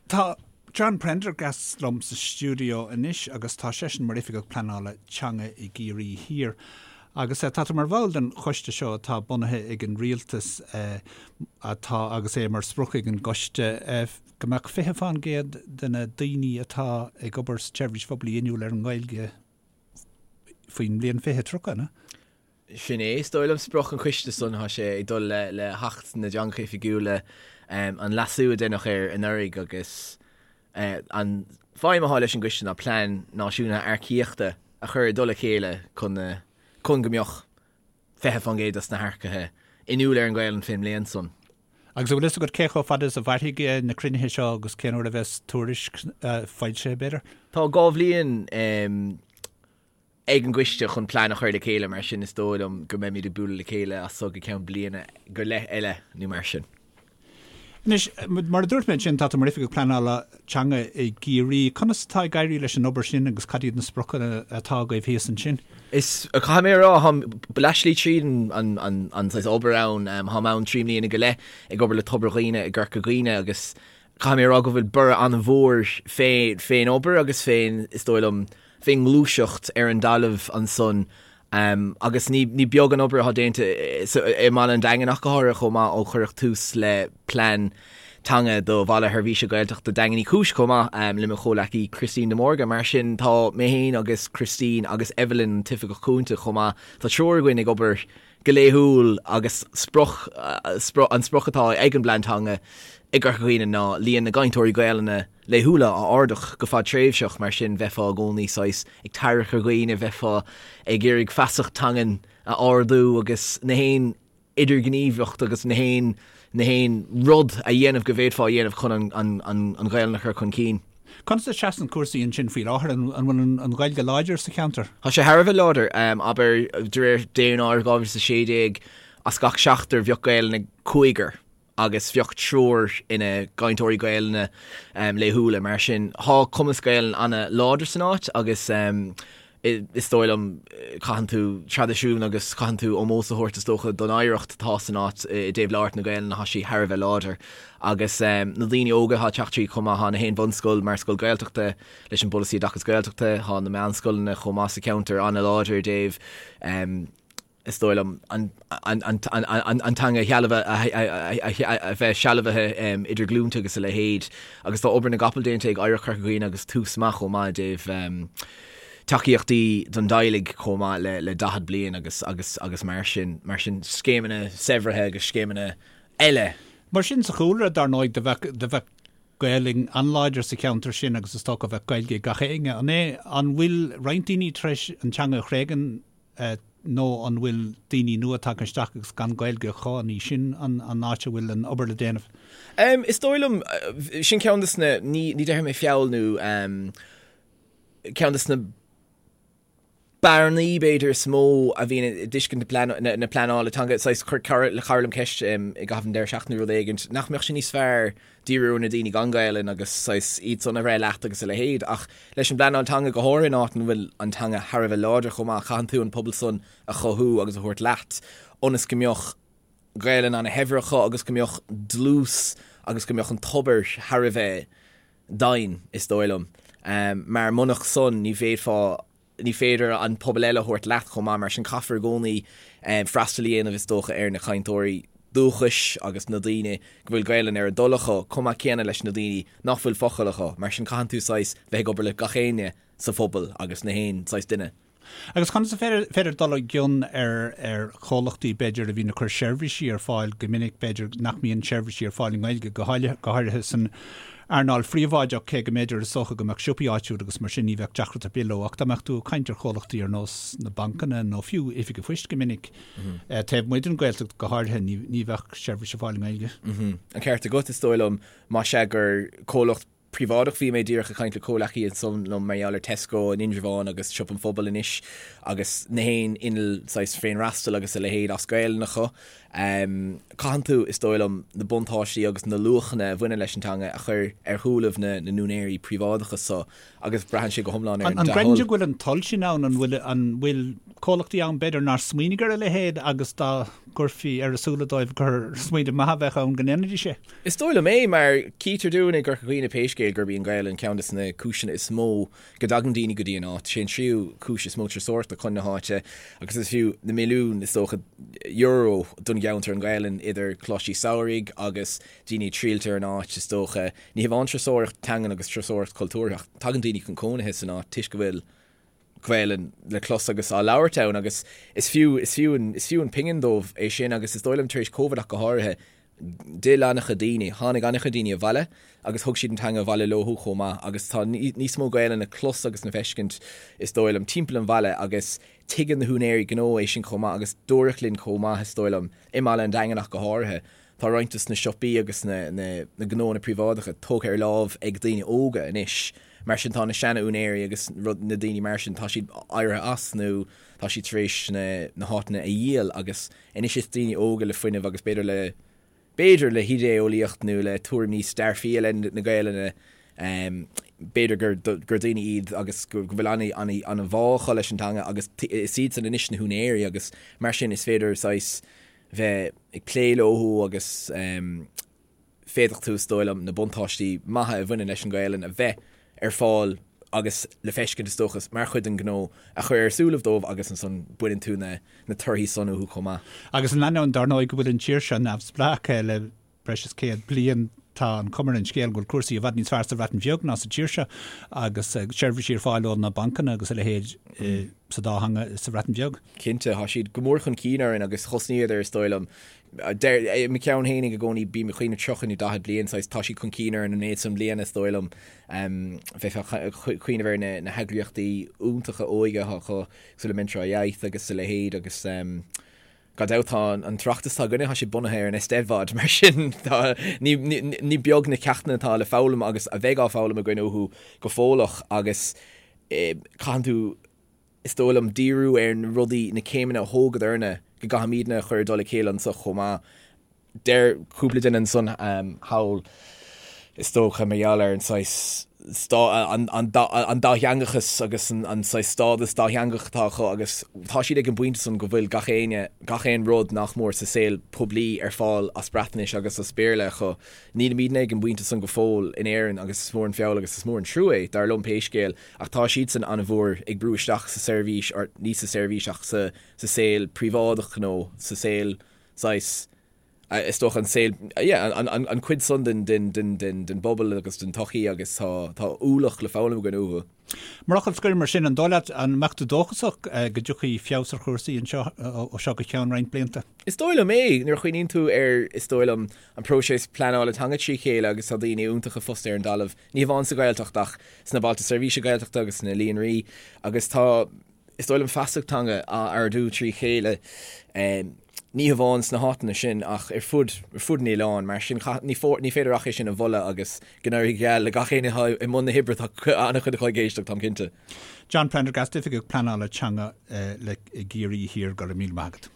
Tá John Prendergast liom sa stiúideo anois agus tá seisean mar Oifigeach Pleanála Teanga i gCiarraí Thiar. Agus tá tú mar bhall den choiste seo atá bunaithe ag an rialtas atá agus é mar sprioc ag an gcoiste go mbeadh 20% de na daoine atá ag obair sa tseirbhís phoiblí inniúil ar an nGaeilge faoin mbliain 2030, an ea? Sin é, is dóigh liom, sprioc an choiste san. Tá sé ag dul le hAcht na dTeangacha Oifigiúla, an leasú a deineadh air anuraidh agus an feidhm atá leis an gcoiste ná plean náisiúnta earcaíochta a chur i dtoll a chéile chun chun go mbeadh 20% dos na hearcaithe inniúil ar an Ghaelainn fén mbliain san. Agus an bhfuil fhios agat cé chomh fada is a mhairfidh na cruinnithe seo agus cén uair a bheas tuairisc foilsithe, b'fhéidir? Tá 2 bhliain ag an gcoiste chun plean a chur le chéile, mar sin is dóigh liom go mbeimid ag bualadh le chéile as so go ceann bliana go leith eile nó mar sin. Anois, mar a dúirt mé ansin, tá tú mar Oifigeach Pleanála Teanga i gCiarraí. Conas atá ag éirí leis an obair sin agus cad iad na spriocanna atá agaibh thíos ansin? Is, caithfidh mé a rá, táim leathshlí tríd an an saghas obair ann. Táim ann 3 mbliana go leith ag obair le Tobar Dhuibhne i gCorca Dhuibhne agus caithfidh mé a rá go bhfuil borradh an-mhór fén obair agus fén, is dóigh liom, fén ngluaiseacht ar an dtalamh ansan agus ní beag an obair atá déanta i mbaile an Daingin ach go háirithe chomh maith ó cuireadh tús le plean teanga do Bhaile Sheirbhíse Gaeltachta Daingean Uí Chúis chomh maith le mo chomhleacaí Christine de Mórdha. Mar sin tá mé féin agus Christine agus Evelyn an tOifigeach Cúnta chomh maith, tá triúr againn ag obair go laethúil agus sprioc, an sprioc atá ag an bplean teanga i gCorca Dhuibhne ná líon na gcainteoirí Gaelainne laethúla a ardú go fadtréimhseach, mar sin bheifeá i gcónaí saghas ag tarrac ar dhaoine, bheifeá ag iarraidh feasacht teangan a ardú agus na haon idirghníomhaíocht agus na haon na haon rud a dhéanamh go bhféadfá a dhéanamh chun an an an an Ghaelainn a chur chun cinn. Conas a seasann cúrsaí ansin faoi láthair? An bhfuil an Ghaeilge láidir sa cheantar? Tá sé thar a bheith láidir. Abair, de réir daonáireamh 2016, as gach seachtar bheadh Gaelainn ag cúigear agus bheadh triúr ina gcainteoirí Gaelainne laethúla. Mar sin, tá cumas Gaelainne ana-láidir san áit agus is dóigh liom, caitheann tú traidisiún agus caitheann tú ómós a thabhairt is dócha don oidhreacht atá san áit i dtaobh labhairt na Gaelainne, tá sí thar a bheith láidir. Agus na daoine óga atá ag teacht tríd chomh maith, tá na haon bhunscoil mar scoil Gaeltachta leis an bpolasaí oideachas Gaeltachta, tá na meánscoileanna chomh maith sa cheantar an-láidir i dtaobh is dóigh liom, an teanga a bheith sealbhaithe idir glúnta agus a leithéid. Agus tá obair na gcapall déanta ag Oidhreacht Chorca Dhuibhne agus Tús Maith chomh maith i dtaobh tacaíochtaí don dteaghlaigh chomh maith le 40 bliain agus agus agus mar sin, mar sin scéimeanna saibhrithe agus scéimeanna eile. Mar sin sa chúlra, dar ndóigh, do bheadh, do bheadh Gaelainn an-láidir sa cheantar sin agus is dócha bheadh Gaeilge ag gach éinne. An é, an bhfuil roinnt daoine tar éis an teanga a thréigean nó an bhfuil daoine nua tagtha isteach agus gan Gaeilge acu, an í sin an áit a bhfuil an obair le déanamh? Is dóigh liom, sin ceann de na, ní déarfaidh mé feall nó ceann de na bearnaí b'fhéidir is mó a bhíonn i dtuiscint na pleanála teanga, saghas, chuir cara liom ceist i gcaitheamh an deireadh seachtaine nó rud éigin, nach mbeadh sé níos fearr díriú ar na daoine gan Gaelainn agus saghas iad san a bhreith leat agus a leithéid. Ach leis an bpleanáil teanga, go háirithe in áit ina bhfuil an teanga thar a bheith láidir chomh maith, caitheann tú an pobal san a chothú agus a thabhairt leat ionas go mbeadh Gaelainn ana-shaibhir acu agus go mbeadh dlús agus go mbeadh an tobar thar a bheith doimhin, is dóigh liom. Mar munach san ní bhféadfá ní féidir an pobal eile a thabhairt leat chomh maith, mar sin caithfear i gcónaí freastal a dhéanamh is dócha ar na cainteoirí dúchais agus na daoine go bhfuil Gaelainn ar a dtoil acu, chomh maith céanna leis na daoine nach bhfuil focal acu, mar sin caitheann tú saghas bheith ag obair le gach éinne sa phobal agus na haon saghas duine. Agus conas is féidir dul i gcion ar ar chomhlachtaí b'fhéidir a bhíonn ag cur seirbhísí ar fáil go minic b'fhéidir nach mbíonn seirbhísí ar fáil i nGaeilge go háirithe san earnáil phríobháideach cé go mb'fhéidir is dócha go mbeadh siopaí áitiúil agus mar sin ní bheadh deacracht ar bith leo ach dá mbeadh tú ag caint ar chomhlachtaí ar nós na bancanna nó fiú oifig an phoist go minic taobh amuigh den Ghaeltacht go háirithe ní ní bheadh seirbhís ar fáil i nGaeilge. An ceart agat is dóigh liom más ea gur comhlacht príobháideach. Bhí mé díreach ag caint le comhleacaí ansan liom mar gheall ar Tesco in Indreabhán agus Siopa an Phobail anois agus na haon inneall saghas féinfhreastail agus a leithéid as Gaelainn acu. Caitheann tú, is dóigh liom, na buntáistí agus na luachanna a bhaineann leis an teanga a chur ar shúilibh na n-úinéirí príobháideacha so agus braitheann sé go hiomlán ar an dea-thoil. An gcreideann tú go bhfuil an toil sin ann? An bhfuil, an bhfuil comhlachtaí ann b'fhéidir nár smaoinigh ar a leithéid agus dá gcuirfí ar a súile dóibh gur smaoineamh maith a bheadh ann go ndéanfaidís é? Is dóigh liom é, mar chítear dúinn i gCorca Dhuibhne pé scéal. scéal gurb í an Ghaelainn ceann de na cúiseanna is mó go dtagann daoine go dtí an áit. Sé an tríú cúis is mó turasóireachta chun na háite agus is fiú na milliúin, is dócha, euro don gceantar an Ghaelainn idir coláistí samhraidh agus daoine ag triallt ar an áit, is dócha. Ní hamháin turasóireacht teangan agus turasóireacht chultúrtha ach tagann daoine chun cónaithe san áit toisc go bhfuil Gaelainn le clos agus á labhairt ann agus is fiú, is fiú an, is fiú an pingin dóibh é sin agus is dóigh liom tar éis Covid ach go háirithe, d'fhill an-chuid daoine, tháinig an-chuid daoine abhaile agus thug siad an teanga abhaile leo chomh maith agus tá níos mó Gaelainn le clos agus le feiscint is dóigh liom timpeall an bhaile agus tuigeann na húinéirí gnó é sin chomh maith agus dúradh linn chomh maith is dóigh liom i mBaile an Daingin ach go háirithe Tá roinnt de na siopaí agus na gnóanna príobháideacha tógtha ar láimh ag daoine óga anois, mar sin tá na seana-úinéirí agus na daoine mar sin, tá siad éirithe as nó tá siad tar éis na háiteanna a dhíol agus anois is daoine óga le fuinneamh agus b'fhéidir le, b'fhéidir le hidé-eolaíocht nó le tuairim níos dearfaí i leith na Gaelainne, b'fhéidir gur gur daoine iad agus go bhfuil an-bhá acu leis an teanga agus is iadsan anois na húinéirí agus mar sin is féidir saghas bheith ag plé leo agus féadfaidh tú, is dóigh liom, na buntáistí maithe a bhaineann leis an Ghaelainn a bheith ar fáil agus le feiscint, is dócha, mar chuid den ghnó a chur ar súilibh dóibh agus ansan baineann tú na torthaí san uathu chomh maith. Agus in ainneoin, dar ndóigh, go bhfuil an tír seo neamhspleách le breis is 100 bliain, tá an chuma ar an scéal go bhfuil cúrsaí i bhfad níos fearr sa Bhreatain Bheag ná sa tír seo agus seirbhísí ar fáil ó na bancanna agus a leithéid sa dá theanga sa Bhreatain Bheag. Cinnte, tá siad go mór chun cinn orainn agus thosnaíodar, is dóigh liom, deir, i mo cheann fhéinig i gcónaí, bím ag cuimhneamh 30 nó 40 bliain, saghas, tá siad chun cinn orainn an méid san bliana, is dóigh liom. Bheifeá ag cuimhneamh ar na heagraíochtaí iontacha óige atá acu, cosúil le Mentrau Iaith agus a leithéid agus, Gan dabht tá an tOireachtas atá againne, tá sé bunaithe ar an Eisteddfod, mar sin tá, ní, ní beag na ceachtanna atá le foghlaim agus a bheidh á foghlaim againn uathu go fóilleach agus caitheann tú, is dóigh liom, díriú ar na rudaí, na céimeanna a thógadarna go gcaithfimidne a chur i dtoll a chéile anso chomh maith. Deir cúpla duine ansan thall, is dócha, mar gheall ar an saghas an dátheangachas agus an saghas stádas dátheangach atá acu agus tá siad ag an bpointe san go bhfuil gach éinne, gach aon rud nach mór sa saol poiblí ar fáil as Breatnais agus as Béarla acu. Nílimidne ag an bpointe san go fóill in Éirinn agus is mór an feall agus is mór an trua é, dar liom pé scéal, ach tá siadsan an-mhór ag brú isteach sa seirbhís, or ní sa seirbhís ach sa saol príobháideach nó sa saol saghas, is dócha an saol, yeah, an cuid san den bpobal agus den tsochaí agus tá ualach le foghlaim againn uathu. Mar fhocal scoir mar sin, an dóigh leat, an mbeadh tú dóchasach go dtiocfaidh feabhas ar chúrsaí anseo ó seo go ceann roinnt blianta? Is dóigh liom é, nuair a chuimhníonn tú ar, is dóigh liom, an próiseas pleanála teanga trí chéile agus tá daoine iontacha fostaithe ar an dtalamh, ní hamháin sa Ghaeltacht ach sna Bailte Seirbhíse Gaeltachta agus sna líonraí agus tá, is dóigh liom feasacht teanga á ardú trí chéile, ní hamháin sna háiteanna sin ach ar fud, ar fud an oileáin. Mar sin, ní, ní féidir ach é sin a mholadh agus go n-éirí go geal le gach éinne atá i mbun na hoibre, tá an-chuid acu ag éisteacht, táim cinnte. John Prendergast, Oifigeach Pleanála Teanga le i gCiarraí Thiar, go raibh míle maith agat.